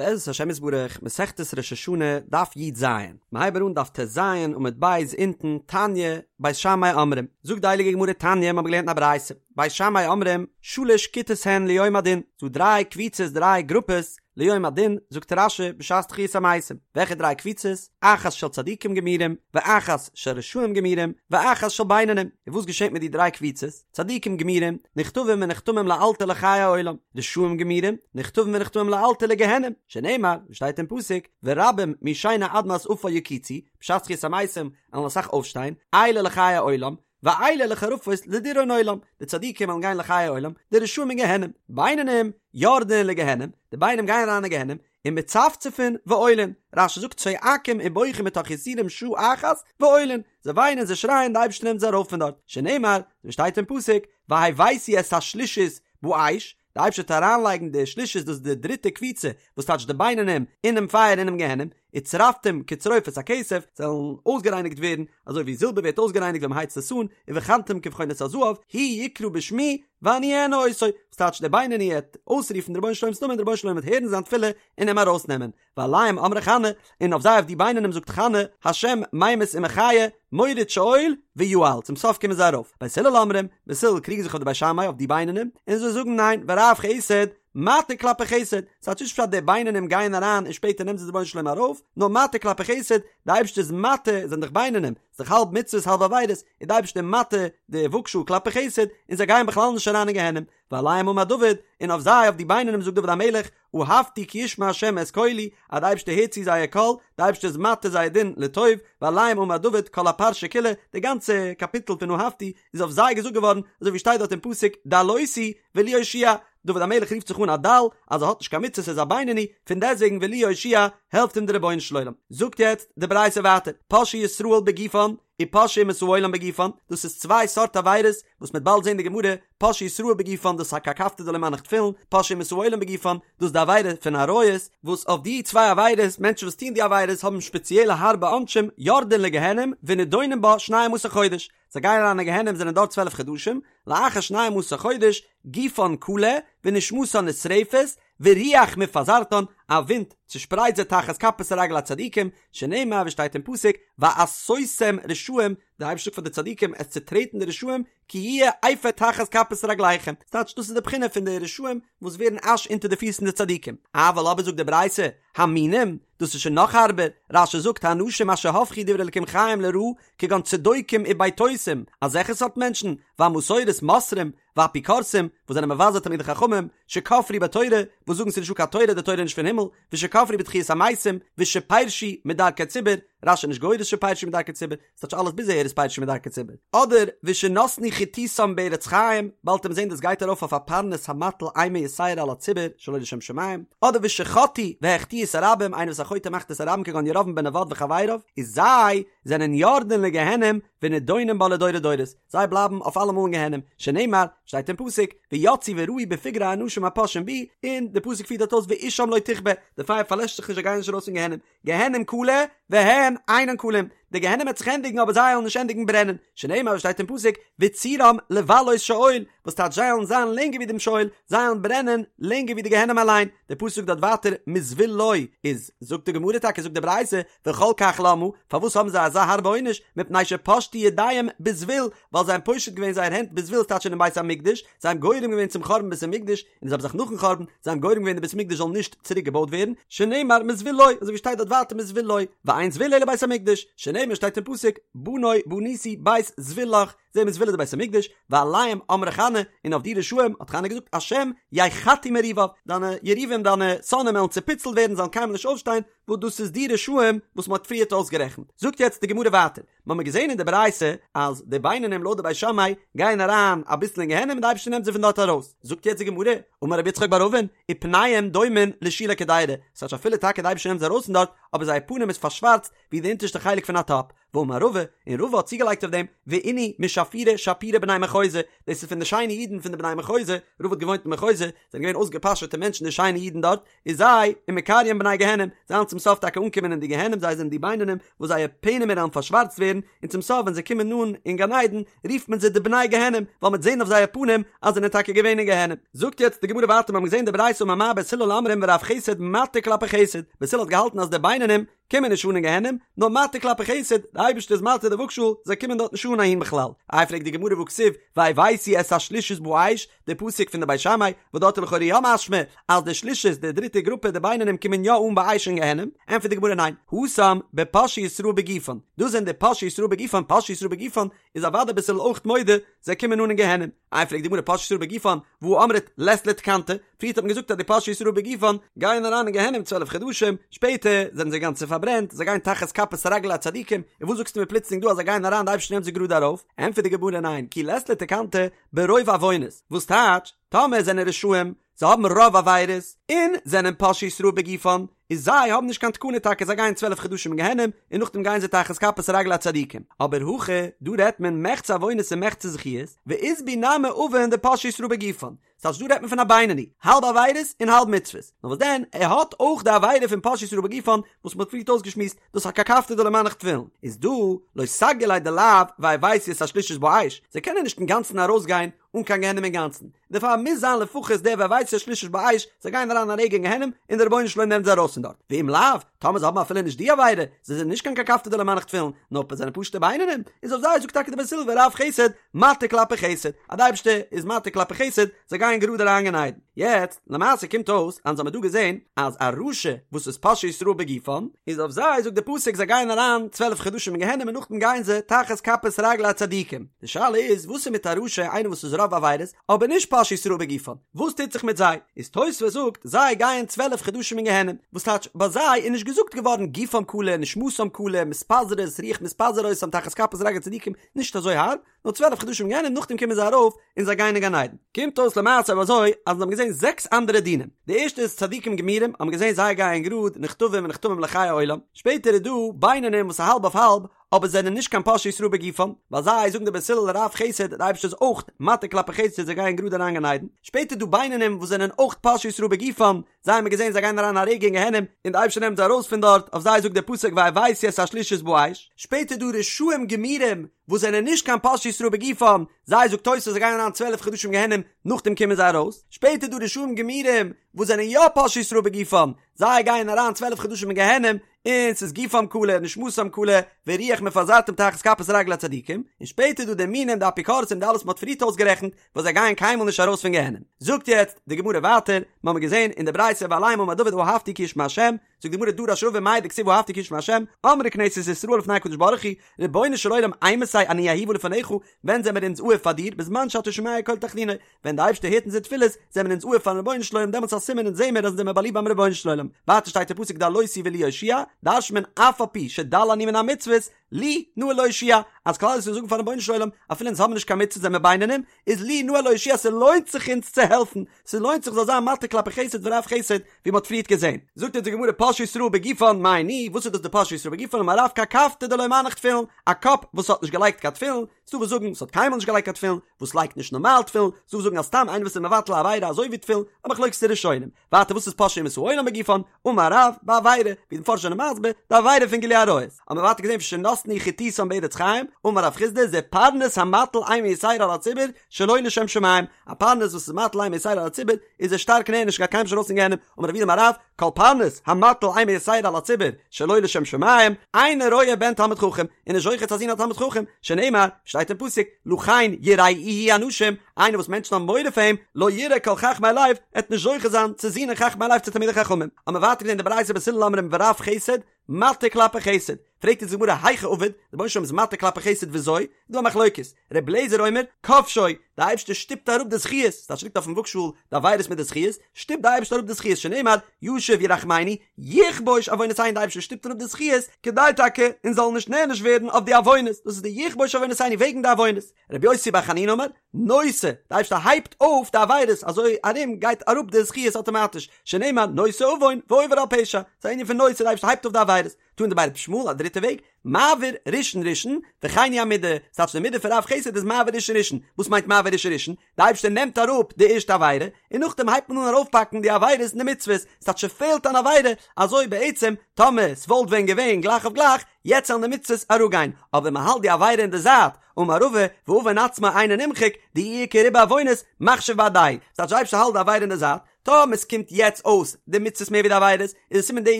בעזרת השם יתברך, מסכת ראש השנה, דף י"ז, מיר הייבן אן דף ט"ז עמוד ב' אונטן, תניא, בית שמאי אומרים, זאגט די הייליגע גמרא תניא, מיר האבן געלערנט אין א ברייתא, בית שמאי אומרים, שלש כיתות הן ליום הדין, ס'דא דריי קבוצות דריי גרופעס, ליום הדין, זאגט רש"י, בשעת תחיית המתים, וועלכע דריי קבוצות? אחת של צדיקים גמורים, ואחת של רשעים גמורים, ואחת של בינונים, און וואס געשעט מיט די דריי קבוצות? צדיקים גמורים, נכתבים ונחתמים לאלתר לחיי העולם, רשעים גמורים, נכתבים ונחתמים לאלתר לגיהנום, שנאמר, ווי שטייט אין פסוק, ורבים משנה אדמת עפר יקיצו, בשעת תחיית המתים וועלן אסאך אויפשטיין, אלה לחיי העולם, ואלה לחרפות לדיראון עולם, די צדיקים וועלן גיין לחיי העולם, די רשעים אין גיהנום, בינונים, יורדין לגיהנום, די בינונים גייען אריין אין גיהנום, ומצפצפין ועולין, רש"י זאגט צועקים ובוכים מתוך יסורים שעה אחת ועולין, זיי וויינען זיי שרייען די אייבערשטער נעמט זיי ארויף פון דארט, שנאמר, ווי שטייט אין פסוק, והבאתי את השלישית באש, די אייבערשטער וועט אריינלייגן די שלישית דאס איז די דריטע קבוצה, וואס טייטש די בינונים, אינעם פייער אינעם גיהנום, וצרפתים כצרופת הכסף, זיי וועלן אויסגערייניגט ווערן, אזוי ווי זילבער ווערט אויסגערייניגט ווען מען הייצט עס אן, ובחנתם כבחון את הזהב, הוא יקרא בשמי, ואני אענה אותו, וואס טייטש דער בינוני העט אויסרופן די רבונו של עולם'ס נאמען, דער רבונו של עולם וועט הערן זיין תפילה און אים ארויסנעמען, ועליהם אמרה חנה, און אויף זיי אויף די בינונים זאגט חנה, השם ממית ומחיה, מוריד שאול ויעל, צום סוף קומען זיי ארויף, בית הלל אומרים, בית הלל קריגן זיך אויף די בית שמאי אויף די בינונים, און זיי זאגן ניין, ורב חסד, מטה כלפי חסד, ס'טייטש נישט פשט די בינונים גייען אריין און שפעטער נעמט זיי די רבונו של עולם ארויף, נאר מטה כלפי חסד, די אייבערשטער איז מטה, זענען דאך בינונים, ס'איז דאך האלב מצוות האלב עבירות, איז די אייבערשטער מטה די וואגשאל כלפי חסד, און זיי גייען בכלל נישט אריין אין גיהנום, ועליהם אמר דוד, און אויף זיי אויף די בינונים זאגט דוד המלך, אהבתי כי ישמע ה' את קולי, אז די אייבערשטער הערט צו זייער קול, די אייבערשטער איז מטה זייער דין לטוב, ועליהם אמר דוד כל הפרשה כולה, די גאנצע קאפיטל פון אהבתי איז אויף זיי געזאגט געווארן, אזוי ווי שטייט דארט אין פסוק דלותי ולי הושיע, דוד המלך רופט זיך אן א דל, אז ער האט נישט קיין מצוות ער איז א בינוני, פון דעסטוועגן ולי יהושיע העלפט אים דער רבונו של עולם. זאגט יעצט די ברייתא ווייטער, פושעי ישראל בגופן, ופושעי אומות העולם בגופן, דאס איז צוויי סארט עבירות, וואס מ'עט באלד זען די גמרא, פושעי ישראל בגופן דאס איז א קרקפתא דלא מנח תפילין, פושעי אומות העולם בגופן, דאס איז די עבירה פון עריות, וואס אויף די צוויי עבירות, מענטשן וואס טוען די עבירות האבן שפעציעלע הארבע עונשים, יורדין לגיהנום ונידונים בה שנים עשר חודש, זיי גייען אריין אין גיהנום זענען דארט 12 חדשים, לאחר שנים עשר חודש, גופן כלה, ונשמתן נשרפת, ורוח מפזרתן, א ווינט צושפרייט זיי תחת כפות רגלי הצדיקים, שנאמר ווי שטייט אין פסוק, ועשותם רשעים, דער אייבערשטער זאגט פאר די צדיקים עס צוטרעטן די רשעים, כי יהיה אפר תחת כפות רגליכם, ס'טייטש דאס איז די בחינה פון די רשעים וואס ווערן אש אונטער די פיס פון די צדיקים, אבל אבער זאגט די ברייתא, המינים, דאס איז שוין נאך הארבער, רש"י זאגט האנשים אשר הפכו דברי אלקים חיים לרעה, כגון צדוקים ובייתוסים, אזעלכע סארט מענטשן, והמסורת מוסרים, ואפיקורסים, וואס זענען מבזה תלמידי חכמים, שכפרו בתורה, וואס זאגן ס'איז נישטא קיין תורה, די תורה איז נישט פון הימל, ושכפרו בתחיית המתים, ושפירשו מדרכי ציבור, רש"י איז נישט גורס שפירשו מדרכי ציבור, ס'טייטש אלעס ביז אהער איז פירשו מדרכי ציבור. אדער ושנתנו חיתותם בארץ חיים, באלד וועט מען זען דאס גייט ארויף אויף א פרנס המטיל אימה יתירה על הציבור שלא לשם שמים, אדער ושחטאו והחטיאו את הרבים, איינער וואס א חוטא ומחטיא את הרבים כגון ירבעם בן נבט וחבריו, איז זיי זענען יורדין לגיהנום ונידונים בה לדורי דורות, זיי בלייבן אויף אלעמאל אין גיהנום, שנאמר, שטייט אין פסוק, ויצאו וראו בפגרי האנשים הפושעים בי, און די פסוק פירט דארט אויס ואשם לא תכבה, די פייער פארלעשט זיך נישט זיי גייען נישט ארויס פון גיהנום, גיהנום כלה, והן אינן כלים, די גיהנום וועט זיך ענדיגן אבער זיי וועלן נישט ענדיגן ברענען, שנאמר ווי שטייט אין פסוק, וצורם לבלות שאול, וואס טייטש זיי וועלן זיין לענגער ווי דעם שאול, זיי וועלן ברענען לענגער ווי די גיהנום אליין, די פסוק זאגט דארט ווייטער מזבול לו, איז זאגט די גמרא טאקע זאגט די ברייתא, וכל כך למה, פארוואס האבן זיי אזא הארבע עונש, מפני שפשטו ידיהם בזבול, ווייל זיי האבן פושט געווען זייער הענט בזבול ס'טייטש אינעם בית המקדש, זיי האבן גורם געווען צום חורבן בית המקדש, און זיי האבן זיך נאכן חורבן, זיי האבן גורם געווען די בית המקדש זאל נישט צוריק געבויט ווערן, שנאמר מזבול לו, אזוי ווי שטייט דארט ווייטער מזבול לו, ואין זבול אלא בית המקדש, שנאמר שטייט אין פסוק, בנה בניתי בית זבול לך, זעהן מיר זבול איז די בית המקדש, ועליהם אמרה חנה, און אויף די רשעים האט חנה געזאגט השם יחתו מריביו, דיינע יריבים דיינע שונאים וועלן צופיצלט ווערן זיי וועלן קיינמאל נישט אויפשטיין, וואס דאס איז די רשעים וואס מען האט פריערט אויסגערעכנט. זאגט יעצט די גמרא ווייטער, מיר האבן געזען אין די ברייתא אז די בינונים לויט די בית שמאי גייען אריין אביסל אין גיהנום און די אייבערשטער נעמט זיי פון דארט ארויס, זאגט יעצט די גמרא, אמר רב יצחק בר אבין, ופניהם דומין לשולי קדירה, ס'טייטש אפילו טאקע די אייבערשטער נעמט זיי ארויס פון דארט, אבער זייער פנים איז פארשווארצט ווי די אונטערשטע חלק פון א טאפ, ואמר רבא, און רבא האט צוגעלייגט אויף דעם, ואינהו משהלכי. שפירי שפירי בני מחוזא, דאס איז פון די שיינע אידן פון די בני מחוזא, רבא האט געוואוינט אין מחוזא, זענען געווען אויסגעפאשעטע מענטשן די שיינע אידן דארט, איז זיי, ומקריין בני גיהנום, זיי וועלן צום סוף טאקע אנקומען אין די גיהנום, זיי זענען די בינונים וואס זייער פענעמער וועלן פארשווארצט ווערן, און צום סוף ווען זיי קומען אן אין גן עדן, רופט מען זיי די בני גיהנום, ווייל מ'וועט זען אויף זייער פנים אז זיי זענען טאקע געווען אין גיהנום. זאגט יעצט די גמרא ווייטער, מיר האבן געזען די ברייתא אמר מר בית הלל אומרים ורב חסד מתיר כלפי חסד, בית הלל האט געהאלטן אז די בינונים קומען נישט אן אין גיהנום, נאר מתיר כלפי חסד, די אייבערשטער איז מתיר די וואגשאל, זיי קומען דארט נישט אן אהין בכלל. איי פרעגט די גמרא והכתיב והבאתי את השלישית באש, די פסוק פון די בית שמאי, וואס דארט איז לכאורה יא משמע אז די שלישית, די דריטע גרופע, די בינונים קומען יא אן באש אין גיהנום, ענטפערט די גמרא ניין, התם בפושעי ישראל בגופן, דאס זענען די פושעי ישראל בגופן, פושעי ישראל בגופן איז אוודאי בית הלל אויך מודה, זיי קומען אן אין גיהנום. איי פרעגט די גמרא פושעי ישראל בגופן, והא אמרת לית להו תקנתא, פריערט האט מען געזאגט אז די פושעי ישראל בגופן גייען אריין אין גיהנום 12 חדשים, שפעטער זענען זיי גאנצע פארברענט, זיי גייען תחת כפות רגלי הצדיקים, און וואס זאגסטו מיר פלוצלינג דא אז זיי גייען אריין די אייבערשטער נעמט זיי גראד ארויף? ענטפערט די גמרא ניין, כי לית להו תקנתא ברוב עוונות, וואס טייטש, טאמער זענען רשעים, זיי האבן רוב עבירות, און זענען פושעי ישראל בגופן, איז זיי האבן נישט קיין תקנה טאקע זיי גייען 12 חדשים אין גיהנום, און נאכדעם גייען זיי תחת כפות רגלי הצדיקים, אבער הכא, דא רעדט מען מחצה עוונות און מחצה זכיות, ואית בהו נמי עוון דפושעי ישראל בגופן, ס'טייטש דא רעדט מען פון א בינוני, האלב עבירות און האלב מצוות, נאר וואס דען, ער האט אויך די עבירה פון פושעי ישראל בגופן וואס מ'האט פריערט אויסגעשמועסט, דאס א קרקפתא דלא מנח תפילין, איז דא, לא סגי ליה דלאו והבאתי את השלישית באש, זיי קענען נישט אינגאנצן ארויסגיין אן קיין גיהנום אינגאנצן, דערפאר מוז זיין לפחות דער והבאתי את השלישית באש, זיי גייען אריין א רגע אין גיהנום און דער רבונו של עולם נעמט זיי ארויס פון דארט, ואם לאו, טאמער זיי האבן אפילו נישט די עבירה, זיי זענען נישט קיין קרקפתא דלא מנח תפילין, נאר זיי זענען פשוטע בינונים, איז אויף זיי זאגט טאקע די בית הלל ורב חסד, מתיר כלפי חסד, אז די אייבערשטער איז מתיר כלפי חסד, זיי גייען גראד אריין גן עדן. יעצט, למעשה קומט אויס, אז אונז האמיר דא געזען, אז א רשע וואס איז פושעי ישראל בגופן, איז אויף זיי זאגט די פסוק זיי גייען אריין 12 חדשים אין גיהנום און נאכדעם גייען זיי תחת כפות רגלי הצדיקים. די שאלה איז, וואס איז מיט א רשע איינער וואס איז רוב עבירות, אבער נישט פושעי ישראל בגופן, וואס טוט זיך מיט זיי? איז תוספות זאגט, זיי גייען 12 חדשים אין גיהנום, וואס טייטש, ביי זיי איז נישט געזאגט געווארן גופם כלה, נשמתם כלה, מתפזרות, רוח מתפזר אותם תחת כפות רגלי צדיקים, נישט אזוי הארב, נאר 12 חדשים גיהנום נאכדעם קומען זיי ארויף און זיי גייען אין גן עדן. קומט אויס למעשה אבער אזוי אז אונז האבן געזען זעקס אנדערע דינים. די ערשטע איז צדיקים גמורים האבן געזען זיי גייען גראד נכתבים ונחתמים לחיי עולם. שפעטער איז דא בינונים וואס איז האלב אויף האלב אבער זענען נישט קיין פושעי ישראל בגופם, ביי זיי זאגן די בית הלל רב חסד די אייבערשטער איז אויך מתיר כלפי חסד זיי גייען גראד אריין גן עדן. שפעטער איז דא בינונים וואס זענען אויך פושעי ישראל בגופם, זיי האבן געזען זיי גייען אריין א רגע אין גיהנום און די אייבערשטער נעמט זיי ארויס פון דארט, אויף זיי זאגט דער פסוק והבאתי את השלישית באש. שפעטער דא רשעים גמורים וואס זענען נישט קיין פושעי ישראל בגופם, זיי זאגט תוס' זיי גייען אריין 12 חדשים גיהנום נאכדעם קומען זיי ארויס, שפעטער דא רשעים גמורים וואס זענען יא פושעי ישראל בגופם, זיי גייען אריין 12 חדשים אין גיהנום און ס'איז גופם כלה נשמתם כלה ורוח מפזרתם תחת כפות רגלי הצדיקים, און שפעטער דא די מינים די אפיקורסים די אלעס וואס מ'האט פריערט אויסגערעכנט וואס זיי גייען קיינמאל נישט ארויס פון גיהנום. זאגט יעצט די גמרא ווייטער, מיר האבן געזען אין די ברייתא ועליהם אמר דוד אהבתי כי ישמע השם, זאגט די גמרא דרש רבא מאי דכתיב אהבתי כי ישמע השם, אמרה כנסת ישראל לפני הקדוש ברוך הוא, רבונו של עולם אימתי אני אהובה לפניך, ווען זעמער אונז אהוב פאר דיר, בזמן שאתה שומע קול תחנוני, ווען די אייבערשטער הערט אונזער תפילות, זעמער אונז אהוב פארן רבונו של עולם, דעמאלטס איז א סימן אונז זעמער אז אונז זעמער באליבט ביים רבונו של עולם. ווייטער שטייט אין פסוק דלותי ולי יושיע, דרש'נט מען אף על פי שדל אני מן המצוות, לי נאה להושיע, אז כלל ישראל זאגן פארן רבונו של עולם, אפילו אונז האבן נישט קיין מצוות זעמער בינונים, איז לי נאה להושיע ס'לוינט זיך אונז צו העלפן, ס'לוינט זיך זאל זיין מתיר כלפי חסד ורב חסד, ווי מ'האט פריערט געזען. זאגט אונז די גמרא פושעי ישראל בגופן מאי ניהו, וואס איז דאס די פושעי ישראל בגופן אמר רב קרקפתא דלא מנח תפילין, א קאפ וואס האט נישט געלייגט קיין תפילין, ס'דא וואס זאגן ס'האט קיינמאל נישט געלייגט קיין תפילין, וואס לייגט נישט נארמאל תפילין, ס'דא וואס זאגן אז סתם איינער וואס איז מבטל א עבירה אזוי ווי תפילין, א מחלוקת ראשונים. ווייטער וואס איז פושעי אומות העולם בגופן, אמר רב, בעבירה, ווי די מפרשים זענען מסביר, די עבירה פון גילוי עריות. האבן מיר ווייטער געזען ושנתנו חתיתם בארץ חיים, אמר רב חסדא, זה פרנס המטיל אימה יתירה על הציבור, שלא לשם שמים, א פרנס וואס איז מטיל אימה יתירה על הציבור, איז ער שטארק נענש גייט קיינמאל נישט ארויס פון גיהנום, אמר רב יהודה אמר רב, כל פרנס המטיל אימה יתירה על הציבור שלא לשם שמים, אינו רואה בן תלמיד חכם, און נישט זוכה צו א זון א תלמיד חכם, שנאמר, שטייט אין פסוק, לכן יראוהו אנשים, איינער וואס מענטשן האבן מורא פאר אים, לא יראה כל חכמי לב, ער וועט נישט זוכה זיין צו זינען חכמי לב צו תלמידי חכמים. האבן מיר ווייטער געזען די ברייתא בית הלל אומרים ורב חסד, מתיר כלפי חסד. פרעגט אונז די גמרא היכי עביד, די רבונו של עולם איז מתיר כלפי חסד וויאזוי? איז דא א מחלוקת, ר' אליעזר אומר, כובשו, די אייבערשטער שטופט אראפ די זכיות, ס'טייטש ליגט אויפן וואגשאהל די עבירות מיט די זכיות, שטופט די אייבערשטער אראפ די זכיות שנאמר, ישוב ירחמנו, יכבוש עוונותינו די אייבערשטער שטופט אראפ די זכיות, כדי טאקע אונז זאלן נישט נענש ווערן אויף די עוונות, דאס איז די יכבוש עוונותינו וועגן די עוונות. רבי יוסי בר חנינא אומר, נושא, די אייבערשטער הייבט אויף די עבירות, אזוי ארום גייט אראפ די זכיות אטאמאטיש, שנאמר נושא עוון ועובר על פשע, ס'איז א ענין פון נושא, די אייבערשטער הייבט אויף די עבירות. תנא דבי רבי ישמעאל א דריטע וועג, מעביר ראשון ראשון, וכן היא המידה, ס'טייטש די מידה פון רב חסד איז מעביר ראשון ראשון, וואס מיינט מעביר ראשון ראשון? די אייבערשטער נעמט אראפ די ערשטע עבירה, און נאכדעם הייבט מען אן ארויפפאקן די עבירות און די מצוות, ס'טייטש ס'פעלט אן עבירה, אזוי בעצם טאמער ס'וואלט ווען געווען גלייך אויף גלייך, יעצט זאלן די מצוות אראפגיין, אבער מ'האלט די עבירה אין די זייט, אמר רבא, ועוון עצמו אינו נמחק, דאי איכא ריבוי עוונות, מחשיב בהדיה, ס'טייטש די אייבערשטער האלט די עבירה אין די זייט, טאמער ס'קומט יעצט אויס די מצוות מער ווי די עבירות, איז עס סימן די איד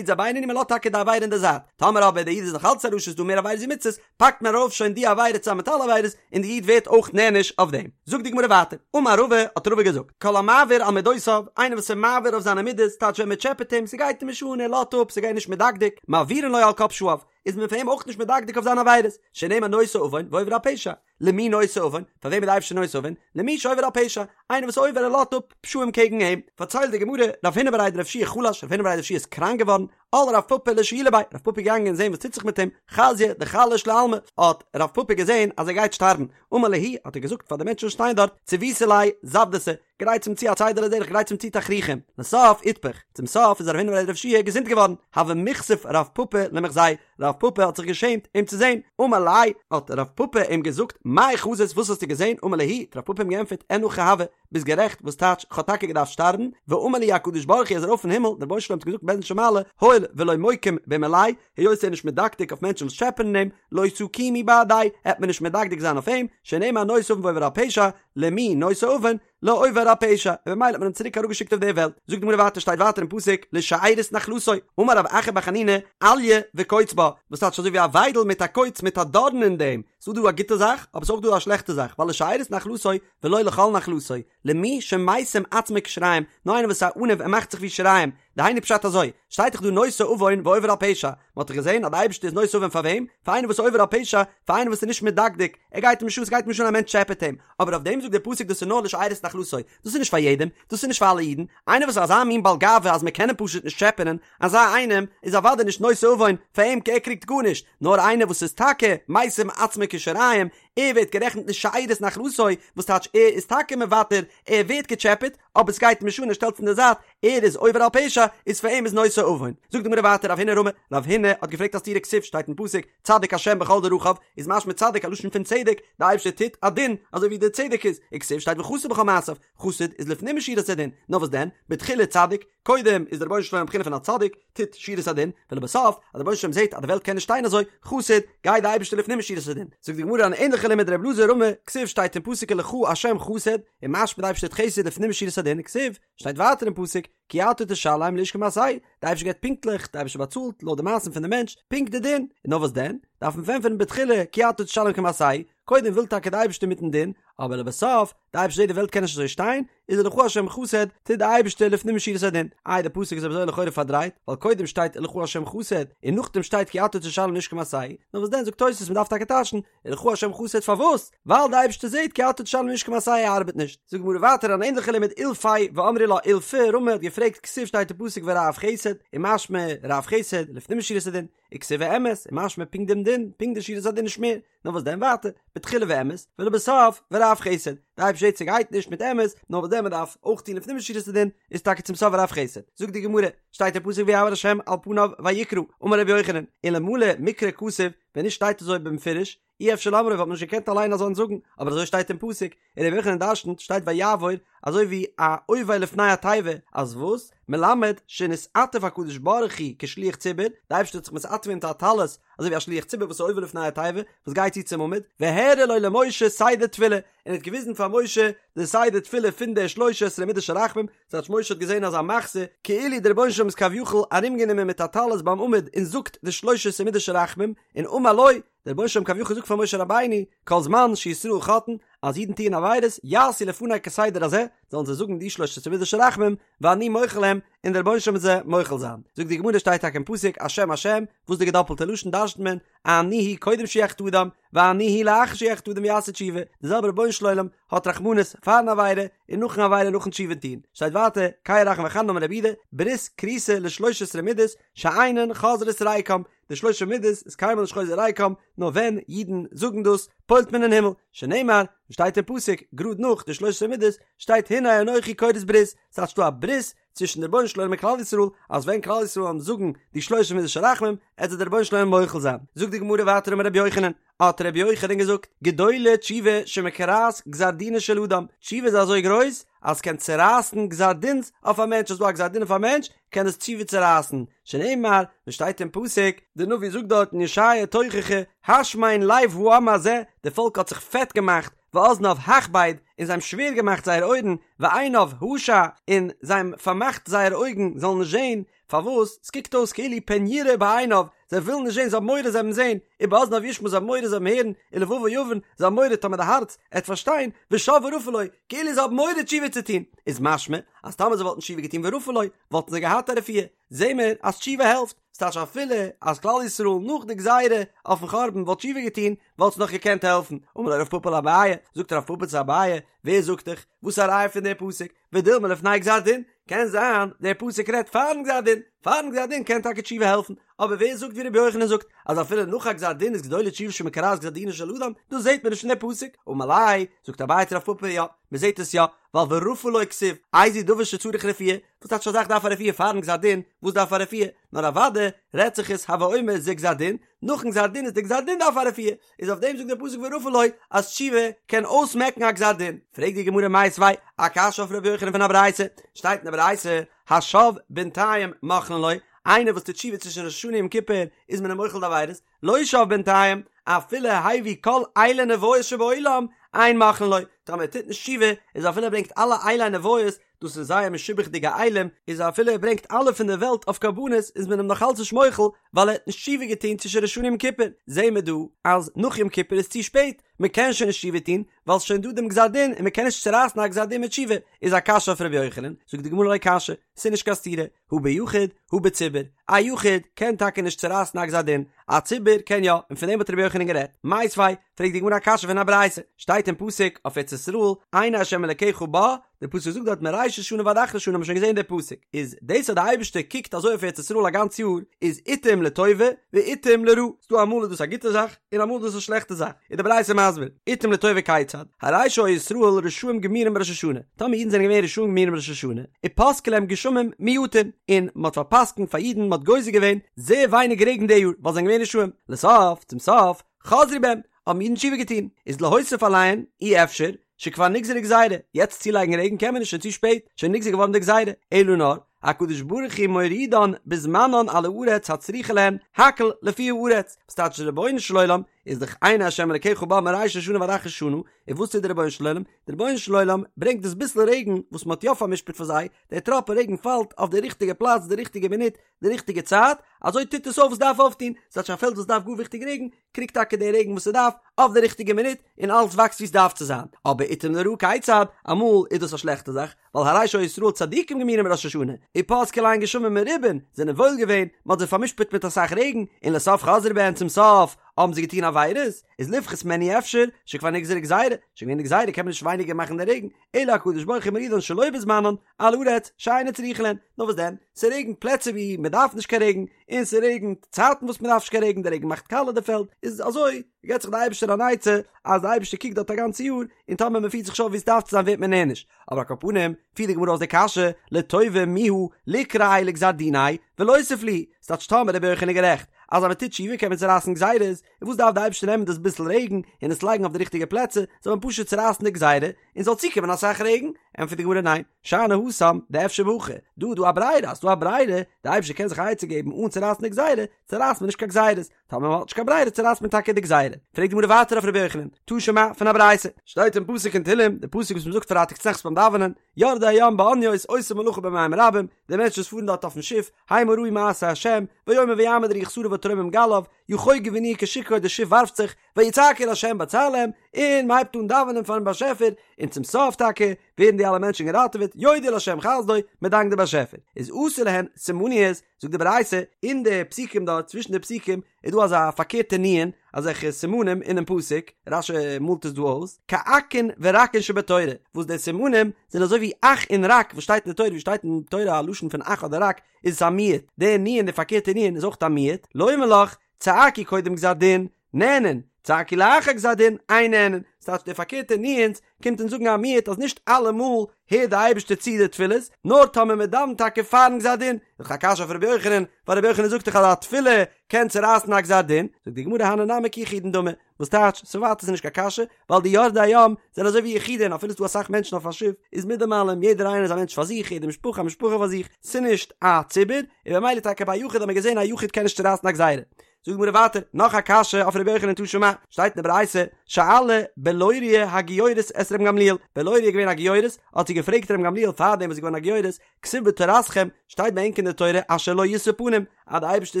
איז א בינוני מ'לאזט טאקע די עבירה אין די זייט, טאמער אבער די איד איז נאך אלץ א רשע ס'איז דא מער עבירות ווי מצוות, פאקט מען ארויף שוין די עבירה צוזאמען מיט אלע עבירות, און די איד ווערט אויך נענש אויף דעם. זאגט די גמרא ווייטער, אמר רבא, האט רבא געזאגט, כל המעביר על מדותיו, איינער וואס איז מעביר אויף זיינע מידות, טייטש ווען מ'טשעפעט אים, ס'גייט אים נישט אן, ער לאזט אפ, ס'גייט נישט מדקדק, מעבירין לו על כל פשעיו, איז מען פאר אים אויך נישט מדקדק אויף זיינע עבירות, שנאמר נושא עון ועובר על פשע. למי נושא עון? פאר וועם איז די אייבערשטער נושא עון? למי שעובר על פשע, איינער וואס עובר ער לאזט אפ פשעים קעגן אים. פארציילט די גמרא, רב הונא בריה דרב יהושע חלש, רב הונא בריה דרב יהושע איז קראנק געווארן, על רב פפא לשיולי ביה, רב פפא איז געגאנגען זען וואס טוט זיך מיט אים, חזייה דחליש לעלמא, האט רב פפא געזען אז ער גייט שטארבן, אמר להו, האט ער געזאגט פאר די מענטשן וואס שטייען דארט, ציויתו ליה זוודתא, גרייטס אים צו א צידה לדרך, גרייטס אים צו תכריכים, לסוף איתפח, צום סוף איז רב הונא בריה דרב יהושע געזונט געווארן, הוה מיכסיף רב פפא למיחזייה, רב פפא האט זיך געשעמט אים צו זען, אמר ליה, האט רב פפא אים געזאגט, מאי חזית וואס האסטו געזען, אמר להו, האט רב פפא אים געענטפערט, אין הכי הוה, ביסט גערעכט, וואס טייטש, כ'האב טאקע געדארפט שטארבן, ואמר לי הקדוש ברוך הוא איז ארויף אין הימל, דער רבונו של עולם האט געזאגט בית דין של מעלה, הואיל ולא מוקים במיליה, היות ער איז נישט מדקדק אויף מענטשן וואס טשעפענען אים, לא תקימו בהדיה, העט מען נישט מדקדק זיין אויף אים, שנאמר נושא עון ועובר על פשע, למי נושא עון, לעובר על פשע, און במילא האט מען אים צוריק אראפגעשיקט אויף דער וועלט. זאגט די גמרא ווייטער שטייט ווייטער אין פסוק לשארית נחלתו, אמר רב אחא בר חנינא, אליה וקוץ בה, וואס טייטש אזוי ווי א וויידל מיט א קוץ מיט א דארן אין דעם, ס'איז דא א גוטע זאך, אבער ס'איז אויך דא א שלעכטע זאך, ווייל לשארית נחלתו ולא לכל נחלתו, למי שמשים עצמו כשיריים, נאר איינער וואס איז א עניו ער מאכט זיך ווי שיריים, דהיינו פשט אזוי, שטייט דאך דא נושא עון ועובר על פשע, מען האט דאך געזען אז די אייבערשטער איז נושא עון פאר וועם? פאר איינער וואס איז עובר על פשע, פאר איינער וואס איז נישט מדקדק, ער גייט אים נישט אן, ס'גייט אים נישט אן א מענטש טשעפעט אים, אבער אויף דעם זאגט דער פסוק דאס איז נאר לשארית נחלתו, דאס איז נישט פאר יעדעם, דאס איז נישט פאר אלע אידן, איינער וואס איז אזא מין בעל גאווה אז מען קען אים פשוט נישט טשעפענען, אזא איינעם איז אוודאי נישט נושא עון, פאר אים ער קריגט גארנישט, נאר איינער וואס איז טאקע משים עצמו כשיריים, ער ווערט גערעכנט לשארית נחלתו, וואס טייטש ער איז טאקע מוותר, ער ווערט געטשעפעט, אבער סגייט אים נישט אן ער שטעלט עס אין די זייט, ער איז עובר על פשע, איז פאר אים איז נושא עון. זאגט די גמרא ווייטער רב הונא רמי, רב הונא האט געפרעגט א סתירה כתיב שטייט אין פסוק, צדיק השם בכל דרכיו, איז משמע צדיק א לשון פון צדק, די אייבערשטער טוט א דין אזוי ווי דער צדק איז, וכתיב שטייט וחסיד בכל מעשיו, חסיד איז לפנים משורת הדין, נאר וואס דען, בתחילה צדיק, קודם איז דער רבונו של עולם בחינה פון א צדיק, טוט שורת הדין, ולבסוף, אז דער רבונו של עולם זעט אז די וועלט קען נישט שטיין אזוי, חסיד, גייט די אייבערשטער לפנים משורת הדין. זאגט די גמרא אן ענליכע לימוד ר' אלעזר רמי, כתיב שטייט אין פסוק ולך השם חסד, און משמע די אייבערשטער טוט חסד לפנים משורת הדין, כתיב, שטייט ווייטער אין פסוק, כי אתה תשלם לאיש כמעשהו, די אייבערשטער געבט פונקטליך, די אייבערשטער באצאלט לויט די מעשים פון די מענטש, פונקט די דין, און נאר וואס דען, דארף מען פארענטפערן בתחילה כי אתה תשלם כמעשהו, קודם וויל טאקע די אייבערשטער מיטן דין, אבער לבסוף, די אייבערשטער זעט די וועלט קען נישט אזוי שטיין, איז ולך השם חסד, טוט די אייבערשטער לפנים משורת הדין. איי די פסוק איז אזוי לכאורה פארדרייט, ווייל קודם שטייט ולך השם חסד, און נאכדעם שטייט כי אתה תשלם לאיש כמעשהו, נאר וואס דען זאגט תוס' מען דארף טאקע טייטשן, ולך השם חסד פארוואס? ווייל די אייבערשטער זעט כי אתה תשלם לאיש כמעשהו ארבעט נישט. זאגט די גמרא ווייטער אן ענליכע לימוד אילפא ואמרי לה אולפא רמי האט געפרעגט כתיב שטייט אין פסוק ורב חסד, און משמע רב חסד לפנים משורת הדין, וכתיב ואמת, און משמע פונקט דעם דין, פונקט די שורת הדין נישט מער, נאר וואס דען ווייטער, בתחילה ואמת, ולבסוף ורב חסד, די אייבערשטער זעט ס'גייט נישט מיט אמת, נאר וואס דען מ'דארף אויך טון לפנים משורת הדין, איז טאקע צום סוף ורב חסד. זאגט די גמרא, שטייט אין פסוק ויעבור השם על פניו ויקרא, אמר רבי יוחנן, אלמלא מקרא כתוב, ווען נישט שטייט אזוי במפורש, אי אפשר לאמרו וואלט מען נישט געקענט אליין אזאנס זאגן, אבער אזוי שטייט אין פסוק, און רבי יוחנן דרשנ'ט, שטייט ויעבור, אזוי ווי א עובר לפני התיבה, אז וואס? מלמד שנתעטף הקדוש ברוך הוא כשליח ציבור, די אייבערשטער האט זיך מתעטף געווען מיט א טלית, אזוי ווי א שליח ציבור וואס איז עובר לפני התיבה, וואס גייט צו צום עמוד, והראה לו למשה סדר תפילה, און האט געוויזן פאר משה די סדר תפילה פון די שלש עשרה מידות של רחמים, ס'טייטש משה האט געזען אזא מחזה, כאילו דער רבונו של עולם איז כביכול ארומגענומען מיט א טלית ביים עמוד און זאגט די שלש עשרה מידות של רחמים, און אמר לו, דער רבונו של עולם כביכול זאגט פאר משה רבינו, כל זמן שישראל חוטאין, אז אידן טוען עבירות, יעשו לפני כסדר הזה, זאלן זיי זאגן די שלש עשרה מידות של רחמים, ואני מוחל להם, און דער רבונו של עולם וועט זיי מוחל זיין. זאגט די גמרא שטייט טאקע אין פסוק, השם השם, וואס די געדאפלטע לשון דרש'נט מען, אני הוא קודם שיחטא אדם, ואני הוא לאחר שיחטא אדם ויעשה תשובה, די זעלבע רבונו של עולם האט רחמנות פארן עבירה און נאכן עבירה נאכן תשובה טון. שטייט ווייטער, קל רחום וחנון אמר רב יהודה, ברית כרותה לשלש עשרה מידות שאינן חוזרות ריקם, די שלש עשרה מידות איז קיינמאל נישט חוזר ריקם, נאר ווען אידן זאגן דאס, פועל'ט מען אין הימל, שנאמר, ווי שטייט אין פסוק, גראד נאך די שלש עשרה מידות, שטייט הנה. והנה אנכי כורת ברית, ס'טייטש ס'דא א ברית צווישן די רבונו של עולם און כלל ישראל, אז ווען כלל ישראל וועלן זאגן די שלושים מידות של רחמים, עט זיי דער רבונו של עולם מוחל זיין. זאגט די גמרא ווייטער אמר רבי יוחנן, האט רבי יוחנן געזאגט, גדולה תשובה שמקרעת גזר דינו של אדם, תשובה איז אזוי גרויס אז ס'קען צורייסן גזר דין'ס אויף א מענטש, אז ס'דא א גזר דין אויף א מענטש, קען עס תשובה צורייסן, שנאמר, ווי שטייט אין פסוק, די נביא זאגט דארט אין ישעיה תוכחה, השמן לב העם הזה, די פאלק האט זיך פעט געמאכט, ואזניו הכבד, און זיי האבן שווער געמאכט זייער אויערן, ועיניו השע, און זיי האבן פארמאכט זייערע אויגן זאלן נישט זען, פארוואס? ס'קוקט אויס כאילו פן יראה בעיניו, זיי ווילן נישט זען, זיי האבן מורא זיי וועלן זען, ובאזניו ישמע זיי האבן מורא זיי וועלן הערן, ולבבו יבין, זיי האבן מורא טאמער די הארץ עט פארשטיין, ושב ורפא לו, כאילו זיי האבן מורא תשובה צו טון, איז משמע אז טאמער זיי וואלטן תשובה געטון ורפא לו, וואלטן זיי געהאט א רפואה, זעהן מיר אז תשובה העלפט, ס'טייטש אפילו אז כלל ישראל נאך די גזירה אויפן חורבן וואלט תשובה געטון, וואלט עס נאך געקענט העלפן, אמר ליה רב פפא לאביי, זאגט רב פפא צו אביי, ווער זאגט דיך, וואס איז א ראיה פון די פסוק, ודילמא לפני גזר דין, קען זיין דער פסוק רעדט פארן גזר דין, פארן גזר דין קען טאקע תשובה העלפן, אבער ווער זאגט ווי רבי יוחנן זאגט אז אפילו נאך א גזר דין איז גדולה תשובה שמקרעת גזר דינו של אדם, דאס זעט מען נישט אין דער פסוק, אמר ליה, זאגט אביי צו רב פפא יא, מען זעט עס יא, ווייל ורפא לו כתיב, איזהו דבר שצריך רפואה, וואס טייטש א זאך דארף א רפואה פארן גזר דין, וואס דארף א רפואה, נאר אוודאי רעדט זיך עס הוי אומר זה גזר דין, נאכן גזר דין איז די גזר דין דארף א רפואה, איז אויף דעם זאגט דער פסוק ורפא לו אז תשובה קען אויסמעקן א גזר דין. פרעגט די גמרא מיתיבי א קשיא אויף ר' יוחנן פון א ברייתא, שטייט אין די ברייתא השב בינתיים מוחלין לו, איינער וואס טוט תשובה צווישן ראש השנה און יום כיפור איז מען אים מוחל די עבירות, לא שב בינתיים אפילו הביא כל אילי נביות שבעולם אין מוחלין לו, טאמער ער טוט נישט תשובה איז אפילו ער ברענגט אלע אילי נביות דאס איז זייער משובח'דיגע אילים, איז אפילו ער ברענגט אלע פון דער וועלט אויף קרבנות איז מען אים נאך אלץ נישט מוחל ווייל ער האט נישט תשובה געטון צווישן ראש השנה און יום כיפור, זעהן מיר דא אז נאך יום כיפור איז צו שפעט, מען קען שוין נישט תשובה טון ווייל ס'איז שוין דא דעם גזר דין און מען קען נישט צורייסן א גזר דין מיט תשובה, איז א קשיא אויף ר' יוחנן, זאגט די גמרא לא קשיא, ס'איז נישט קיין סתירה, הא ביחיד הא בציבור, א יחיד קען טאקע נישט צורייסן א גזר דין, א ציבור קען יא, און פון דעם האט ר' יוחנן גערעדט. מיתיבי, פרעגט די גמרא א קשיא פון א ברייתא, שטייט אין פסוק אויף ארץ ישראל, עיני ה' אלקיך בה, דער פסוק זאגט דארט מראשית שנה ועד אחרית שנה, האבן מיר שוין געזען די פסוק, איז דאס אז די אייבערשטער קוקט אזוי אויף ארץ ישראל א גאנץ יאר, איז עתים לטובה ועתים לרעה, ס'דא אמאל איז דאס א גוטע זאך, און אמאל איז דאס א שלעכטע זאך, איז די ברייתא מסביר, עתים לטובה כיצד, הרי שהיו ישראל רשעים גמורים בראש השנה, טאמער אידן זענען געווען רשעים גמורים בראש השנה, ופסקו להם גשמים מועטין, און מען האט פאר'פסק'נט פאר אידן, מען האט גוזר געווען זייער ווייניג רעגן די יאר, ווייל זיי זענען געווען רשעים, לסוף, צום סוף, חזרו בהם, האבן אידן תשובה געטון, איז להוסיף עליהן, אי אפשר, שכבר נגזרה גזירה, יעצט צולייגן רעגן קען מען נישט, שוין צו שפעט, שוין נגזר געווארן די גזירה, אלא נאר, הקדוש ברוך הוא מורידן בזמנן על הארץ הצריכה להן, הכל לפי הארץ, וואס טייטש די רבונו של עולם איז דאך עיני השם אלקיך בה מראשית השנה ועד אחרית שנה, און וואס טוט די רבונו של עולם? די רבונו של עולם ברענגט דאס ביסל רעגן וואס מען האט יא פאר'משפט פאר זיי, דער טראפ רעגן פאלט אויף די ריכטיגע פלאץ די ריכטיגע מינוט די ריכטיגע צייט, אזוי טוט עס אויף וואס דארף אויפטון, ס'טייטש א פעלד וואס דארף גאר וויכטיג רעגן, קריגט טאקע די רעגן וואס ס'דארף, אויף די ריכטיגע מינוט, און אלעס וואקסט ווי ס'דארף צו זיין. אבער עתים לרעה כיצד, אמאל איז דאס א שלעכטע זאך, ווייל הרי שהיו ישראל צדיקים גמורים בראש השנה, ופסקו להן גשמים מרובין, זענען וואויל געווען, מ'האט זיי פאר'משפט מיט אסאך רעגן, און לסוף חזרו בהן צום סוף האבן זיי געטון עבירות, איז לפחות מהן אי אפשר, שכבר נגזרה גזירה, שוין געווען די גזירה קען מען נישט ווייניגער מאכן די רעגן, אלא הקדוש ברוך הוא מורידן שלא בזמנן, על הארץ שאינה צריכה להן, נאר וואס דען, ס'רעגנט פלעצער ווי מ'דארף נישט קיין רעגן, און ס'רעגנט צייטן וואס מ'דארף נישט קיין רעגן, די רעגן מאכט קאלע די פעלד, איז אזוי געבט זיך די אייבערשטער אן עצה אז די אייבערשטער קוקט דארט א גאנצע יאר, און טאמער מ'פירט זיך נישט אויף ווי ס'דארף צו זיין ווערט מען נענש, אבער על כל פנים, פירט די גמרא אויס די קשיא, לטובה מיהא ליקרעיה לגזר דיניה ולוסיף להו, ס'טייטש טאמער רבי יוחנן איז גערעכט אז אז מ'טוט תשובה קען מען צורייסן גזירות, און וואס דארף די אייבערשטער נעמען דאס ביסל רעגן און עס לייגן אויף די ריכטיגע פלעצער, זאל מען פשוט צורייסן די גזירה, און זאל צוקומען אסאך רעגן? ענטפערט די גמרא ניין, שאני התם דאפשר בהכי, דא איז דא א ברירה, אז ס'דא א ברירה, די אייבערשטער קען זיך א עצה געבן אן צורייסן די גזירה, צורייסט מען נישט קיין גזירות, טאמער מען האט נישט קיין ברירה צורייסט מען טאקע די גזירה. פרעגט די גמרא ווייטער אויף רבי יוחנן, תא שמע, פון א ברייתא, שטייט אין פסוק אין תהלים, די פסוק וואס מען זאגט פרייטאג צונאכטס ביים דאווענען, יורדי הים באניות עושי מלאכה במים רבים, די מענטשן וואס פארן דארט אויפן שיף, המה ראו מעשה השם, ויאמר ויעמד רוח סערה ותרומם גליו, יחוגו וינועו כשיכור די שיף ווארפט זיך, ויצעקו אל ה' בצר להם, און מען הייבט אן דאווענען פארן באשעפער, און צום סוף טאקע ווערן די אלע מענטשן געראטעוועט, יודו לה' חסדו, מען דאנקט די באשעפער. איז עשו להן סימניות, זאגט די ברייתא, אין די פסוקים דארט, צווישן די פסוקים, איז דא אזא פארקערטע נו"ן, אזעלכע סימנים אינעם פסוק, רש"י מאלט עס דא אויס, כאכין ורקין שבתורה, וואס די סימנים זענען אזוי ווי אך און רק וואס שטייט אין די תורה, ווי שטייט אין תורה א לשון פון אך אדער רק, איז עס א מיעוט, די נו"ן, די פארקערטע נו"ן, איז אויך א מיעוט, לומר לך, צעקו קודם גזר דין, נענין. צעקו לאחר גזר דין, אין נענין, ס'טייטש די פארקערטע ניואנס קומט אונז זאגן א מיעוט אז נישט אלעמאל הערט די אייבערשטער צו די תפילות, נאר טאמער מען דאווענט טאקע פארן גזר דין, איז דאך א קשיא אויף רבי יוחנן, ווייל רבי יוחנן זאגט דאך אז א תפילה קען צורייסן א גזר דין, זאגט די גמרא הני נמי כיחידין דמי, וואס טייטש, ס'ווייטער איז נישט קיין קשיא, ווייל די יורדי הים זענען אזוי ווי יחידים, אפילו ס'דא אסאך מענטשן אויף א שיף, איז מיט דעם אלעם יעדער איינער איז א מענטש פאר זיך, יעדע משפחה א משפחה פאר זיך, ס'נישט א ציבור, און במילא טאקע ביי א יחיד האט מען געזען א יחיד קען נישט צורייסן א גזירה. זאגט די גמרא ווייטער, נאך א קשיא אויף רבי יוחנן תא שמע, שטייט אין די ברייתא, שאלה בלוריא הגיורת את רבן גמליאל, בלוריא איז געווען א גיורת, האט זי געפרעגט רבן גמליאל פארדעם וואס זי איז געווארן א גיורת, כתיב בתורתכם, שטייט ביי ענק אין די תורה אשר לא ישא פנים, אז די אייבערשטער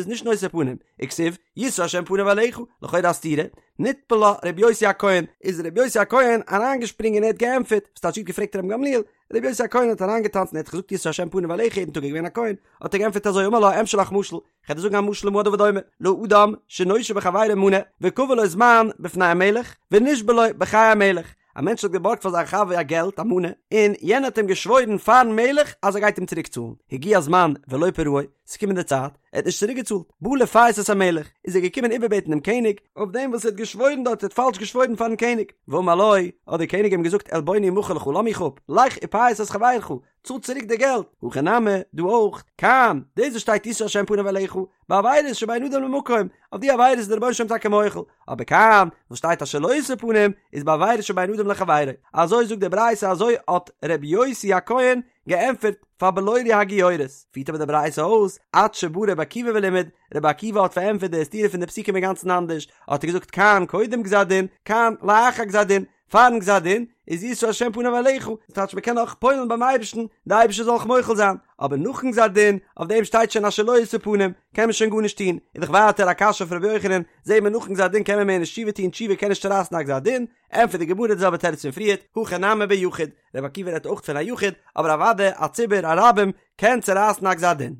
איז נישט נושא פנים, וכתיב, ישא השם פניו אליך, לכאורה א סתירה, נטפל לה רבי יוסי הכהן, איז רבי יוסי הכהן אריינגעשפרינגען און ער האט געענטפערט, וואס טייטש זי האט געפרעגט רבן גמליאל, רבי יוסי הכהן האט אריינגעטאנצן ער האט געזאגט ישא השם פניו אליך יעדן טאג ער איז געווען א כהן, האט ער געענטפערט אזוי אמר לה אמשול לך משל, כ'וועל דיר זאגן א משל למה הדבר דומה, לאדם שנושה בחבירו מנה, וקבע לו זמן בפני המלך, ונשבע לו בחיי המלך, א מענטש האט געבארגט פאר זיין חבר א געלט, א מנה, און יענער האט אים געשוואוירן פארן מלך אז ער גייט אים צוריק צאלן, הגיע הזמן ולא פרעו, ס'איז געקומען די צייט, ער האט נישט צוריק געצאלט, בא לפייס את המלך, איז ער געקומען איבערבעטן דעם קעניג, אויף דעם וואס ער האט געשוואוירן דארט, ער האט פאלש געשוואוירן פארן קעניג, ואמר לו, האט דער קעניג אים געזאגט עלבוני אמחל לך, לאז מיך אפ, לך ופייס את חברך, צאל צוריק די געלט, הכא נמי, דא אויך, כאן, דאס וואס שטייט ישא השם פניו אליך, בעבירות שבין אדם למקום, אויף די עבירות איז דער רבונו של עולם טאקע מוחל, אבער כאן, וואס שטייט אשר לא ישא פנים, איז בעבירות שבין אדם לחבירו. אזוי זאגט די ברייתא אזוי האט ר' יוסי הכהן געענטפערט פאר בלוריא הגיורת. פירט אבער די ברייתא אויס, עד שבא רבי עקיבא ולימד, רבי עקיבא האט פארענטפערט די סתירה פון די פסוקים אינגאנצן אנדערש, האט ער געזאגט כאן קודם גזר דין, כאן לאחר גזר דין, פארן גזר דין איז ישא השם פניו אליך, דאס טייטש מען קען נאך פועל'ן ביים אייבערשטן, די אייבערשטער זאל אויך מוחל זיין, אבער נאכן גזר דין, אויף דעם שטייט שוין אשר לא ישא פנים, קען מען שוין גארנישט טון, איז דאך ווייטער א קשיא אויף ר' יוחנן, זעהט מען נאכן גזר דין קען מען מער נישט תשובה טון, תשובה קען נישט צורייסן א גזר דין, ענטפערט די גמרא די זעלבע תירוץ פון פריערט, הכא נמי ביחיד, רבי עקיבא רעדט אויך פון א יחיד, אבער אוודאי א ציבור, א רבים, קען צורייסן א גזר דין.